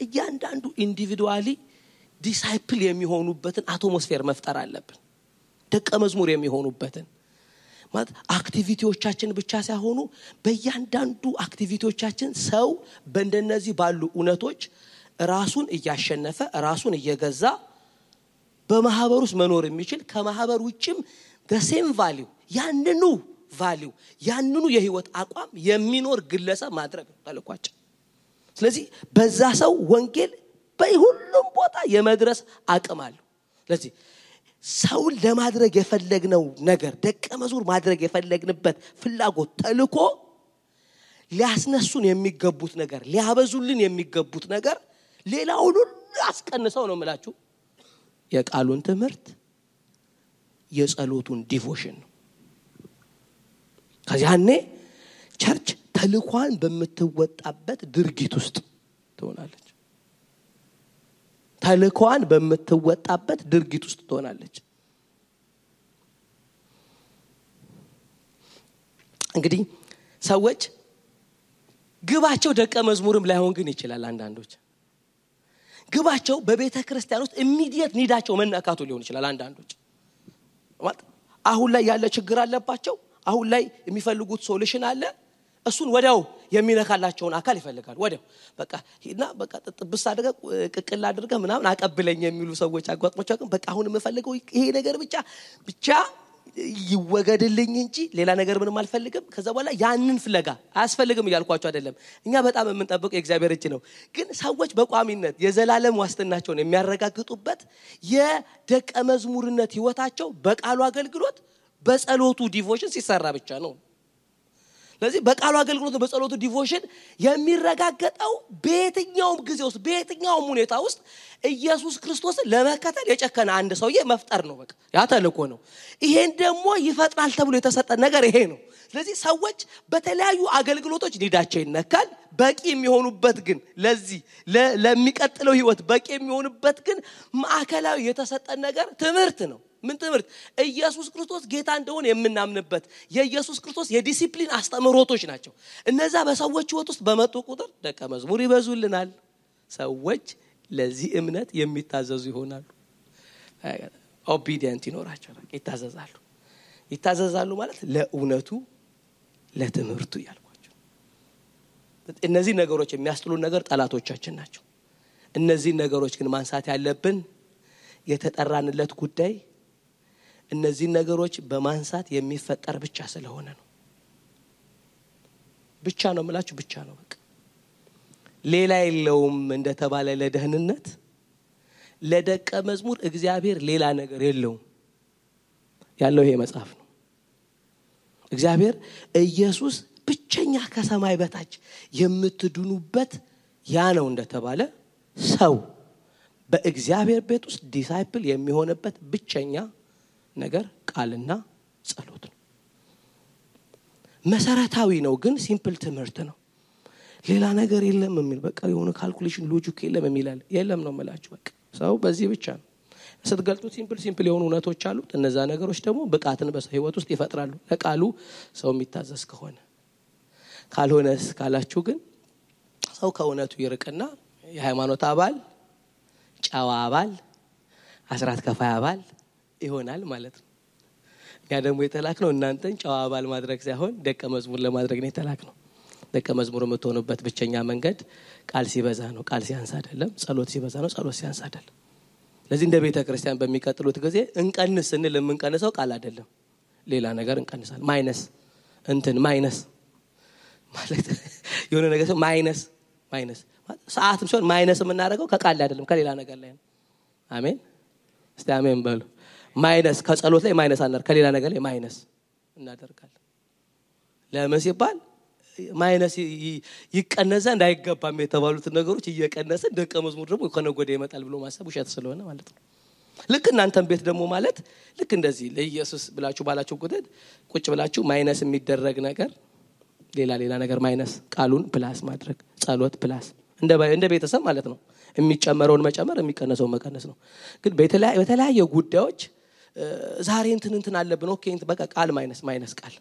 እያንዳንዱ ኢንዲቪዱዋሊ ዲሳይፕል የሚሆኑበትን አትሞስፌር መፍጠር አለብን ደቀ መዝሙር የሚሆኑበትን ማለት አክቲቪቲዎቻችን ብቻ ሳይሆኑ በእያንዳንዱ አክቲቪቲዎቻችን ሰው በእንደነዚህ ባሉ ኡነቶች ራሱን እያሸነፈ ራሱን እየገዛ በማህበር ውስጥ መኖር የሚችል ከማህበር ውጭም the same value ያንኑ የህይወት አቋም የሚኖር ግለሰብ ማድረግ ተልኳቸው ስለዚህ በዛ ሰው ወንጌል በሁሉም ቦታ የመድረስ አቅም አለው ስለዚህ ሰው ለማድረግ የፈለግነው ነገር ደቀ መዝሙር ማድረግ የፈለግንበት ፍላጎት ተልኮ ሊያስነሱን የሚገቡት ነገር ሊያበዙልን የሚገቡት ነገር ሌላውን ሁሉ አስቀንሰው ነው የምላችሁ የቃሉን ትምህርት የጸሎቱን ዲቮሽን ነው ከዚያኔ ቸርች ተልኳን በመተወጣበት ድርጊት ውስጥ ትሆናለች ተልኳን በመተወጣበት ድርጊት ውስጥ ትሆናለች እንግዲህ ሰዎች ግባቸው ደቀ መዝሙርም ላይሆን ግን ይችላል አንዳንዶች ግባቸው በቤተ ክርስቲያን ውስጥ ኢሚዲየት ኒዳቸው መናካቱ ሊሆን ይችላል አንዳንዶች ማለት አሁን ላይ ያለ ችግር አለባቸው አሁን ላይ የሚፈልጉት ሶሉሽን አለ እሱን ወዲያው የሚነካላቸውን አካል ይፈልጋሉ ወዲያው በቃ በቃ ጥብስ አድርገህ ቅቅል አድርገህ ምናምን አቀብለኝ የሚሉ ሰዎች አጓጥሞቻቸው በቃ አሁን የምፈልገው ይሄ ነገር ብቻ ይወገድልኝ እንጂ ሌላ ነገር ምንም አልፈልግም ከዛ በኋላ ያንን ፍለጋ አያስፈልግም ይያልኳቸው አይደለም እኛ በጣም የምንጠብቀው የእግዚአብሔር እጅ ነው ግን ሰዎች በቋሚነት የዘላለም ዋስትናቸውን የሚያረጋግጡበት የደቀ መዝሙርነት ህይወታቸው በቃሉ አገልግሎት በጸሎቱ ዲቮሽን ሲሰራ ብቻ ነው ስለዚህ በቃሉ አገልግሎት በጸሎቱ ዲቮሽን የሚረጋገጠው በየትኛውም ጊዜ ውስጥ በየትኛውም ሁኔታ ውስጥ ኢየሱስ ክርስቶስን ለመከተል የጨከነ አንድ ሰውዬ መፍጠር ነው በቃ ያ ተልኮ ነው ይሄን ደግሞ ይፈጥራል ተብሎ የተሰጠ ነገር ይሄ ነው ስለዚህ ሰዎች በተለያዩ አገልግሎቶች ሊዳቸው ይነካል በቂ የሚሆኑበት ግን ለዚህ ለሚቀጥለው ህይወት በቂ የሚሆኑበት ግን ማዕከላዊ የተሰጠን ነገር ትምህርት ነው ምን ትምህርት ኢየሱስ ክርስቶስ ጌታ እንደሆነ የምናምንበት የኢየሱስ ክርስቶስ የዲሲፕሊን አስተምሮቶች ናቸው እነዛ በሰዎች ህይወት ውስጥ በመጡ ቁጥር ደቀ መዝሙር ይበዙልናል ሰዎች ለዚህ እምነት የሚታዘዙ ይሆናሉ ኦቢዲየንት ይኖራቸዋል ይታዘዛሉ ማለት ለእውነቱ ለትምህርቱ ያልኳቸው እነዚህ ነገሮች የሚያስጥሉ ነገር ጠላቶቻችን ናቸው እነዚህ ነገሮች ግን ማንሳት ያለብን የተጠራንለት ጉዳይ እነዚህ ነገሮች በማንሳት የሚፈጠር ብቻ ስለሆነ ነው ብቻ ነው ማለት ብቻ ነው በቃ ሌላ የለውም እንደተባለ ለደህንነት ለደቀ መዝሙር እግዚአብሔር ሌላ ነገር የለውም ያለው ይሄ መጽሐፍ ነው እግዚአብሔር ኢየሱስ ብቸኛ ከሰማይ በታች የምትድኑበት ያ ነው እንደተባለ ሰው በእግዚአብሔር ቤት ውስጥ ዲሳይፕል የሚሆንበት ብቸኛ ነገር ቃልና ጸሎት ነው መሰረታዊ ነው ግን ሲምፕል ትምህርት ነው ሌላ ነገር የለም የሚል በቃ የሆነ ካልኩሌሽን ሎጂክ የለም ነው ማለት በቃ ሰው በዚህ ብቻ ነው ስትገልጡት ሲምፕል የሆኑ እውነቶች አሉ እነዛ ነገሮች ደግሞ ብቃትን በህይወት ውስጥ ይፈጥራሉ ለቃሉ ሰው የሚታዘዝ ከሆነ ካልሆነስ ካላችሁ ግን ሰው ከእውነቱ ይርቅና የሃይማኖት አባል ጫዋ አባል አስራት ከፋይ አባል ይሆናል ማለት ነው ያ ደግሞ የተላከው እናንተን ጫዋ አባል ማድረግ ሳይሆን ደቀ መዝሙር ለማድረግ ነው የተላከው ደቀ መዝሙር የምትሆኑበት ብቸኛ መንገድ ቃል ሲበዛ ነው ቃል ሲያንስ አይደለም ጸሎት ሲበዛ ነው ጸሎት ሲያንስ አይደለም ለዚህ እንደ ቤተ ክርስቲያን በሚቀጥሉት ጊዜ እንቀንስ እንል የምንቀንሰው ቃል አይደለም ሌላ ነገር እንቀንሳለን ማይነስ ማለት የሆነ ነገር ማይነስ ሰዓትም ሲሆን ማይነስ የምናደርገው ከቃል አይደለም ከሌላ ነገር ላይ ነው አሜን እስቲ አሜን በሉ ማይነስ ከጸሎት ላይ ማይነስ አናር ከሌላ ነገር ላይ ማይነስ እናደርጋለን ለምን ሲባል ማይነስ ይቀነዘ እንዳይገባም የተባሉት ነገሮች እየቀነሰ ደቀ መዝሙር ደግሞ ከነጎደ ይመጣል ብሎ ማሰብ ውሸት ስለሆነ ማለት ነው ልክ እናንተም ቤት ደግሞ ማለት ልክ እንደዚህ ለኢየሱስ ብላችሁ ባላችሁ ቁጭ ብላችሁ ማይነስ የሚደረግ ነገር ሌላ ነገር ማይነስ ቃሉን ፕላስ ማድረግ ጸሎት ፕላስ እንደ ቤተሰብ ማለት ነው የሚጨመረውን መጨመር የሚቀነሰውን መቀነስ ነው ግን በተለያየ ጉዳዮች ዛሬ እንትን አለብን ኦኬ በቃ ቃል ማይነስ ቃል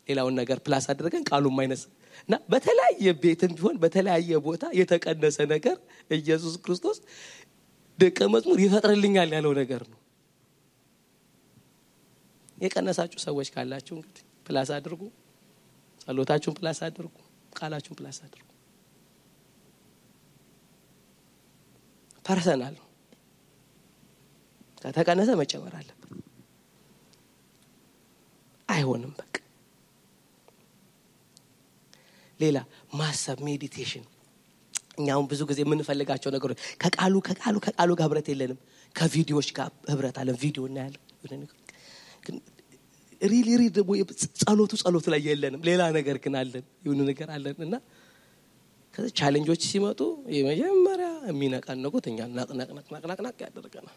ሌላውን ነገር ፕላስ አድርገን ቃሉን ማይነስ እና በተለያየ ቤትም ቢሆን በተለያየ ቦታ የተቀነሰ ነገር ኢየሱስ ክርስቶስ ደቀ መዝሙር ይፈጥርልኛል ያለው ነገር ነው የቀነሳችሁ ሰዎች ካላችሁ እንግዲህ ፕላስ አድርጉ ጸሎታችሁን ፕላስ አድርጉ ቃላችሁን ፕላስ አድርጉ ፐርሰናል ከተቀነሰ መጨመር አለበት አይሆንም በቃ ሌላ ማሰብ ሜዲቴሽን እኛው ብዙ ጊዜ የምንፈልጋቸው ነገሮች ከቃሉ ጋር ህብረት የለንም ከቪዲዮዎች ጋር ህብረት አለን ቪዲዮ እናያለን ግን ሪሊ ደግሞ ጸሎቱ ላይ የለንም ሌላ ነገር ግን አለን የሆነ ነገር አለንና ከዛ ቻሌንጆች ሲመጡ የመጀመሪያ የሚነቃነቁት እኛ ናቅናቅ ያደርገናል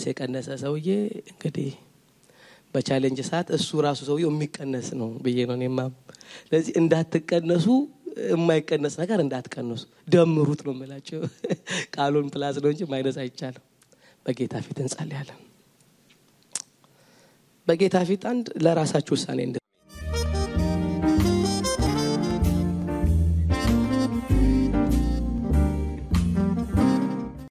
የቀነሰ ሰውዬ እንግዲህ በቻሌንጅ ሰዓት እሱ ራሱ ሰውዬው የሚቀነስ ነው ብዬ ነው እኔማ ስለዚህ እንዳትቀነሱ የማይቀነስ ነገር እንዳትቀነሱ ደምሩት ነው የምላችሁ ቃሉን ፕላስ ነው እንጂ ማይነስ አይቻልም በጌታ ፊት እንጸልያለን በጌታ ፊት አንድ ለራሳችሁ ውሳኔ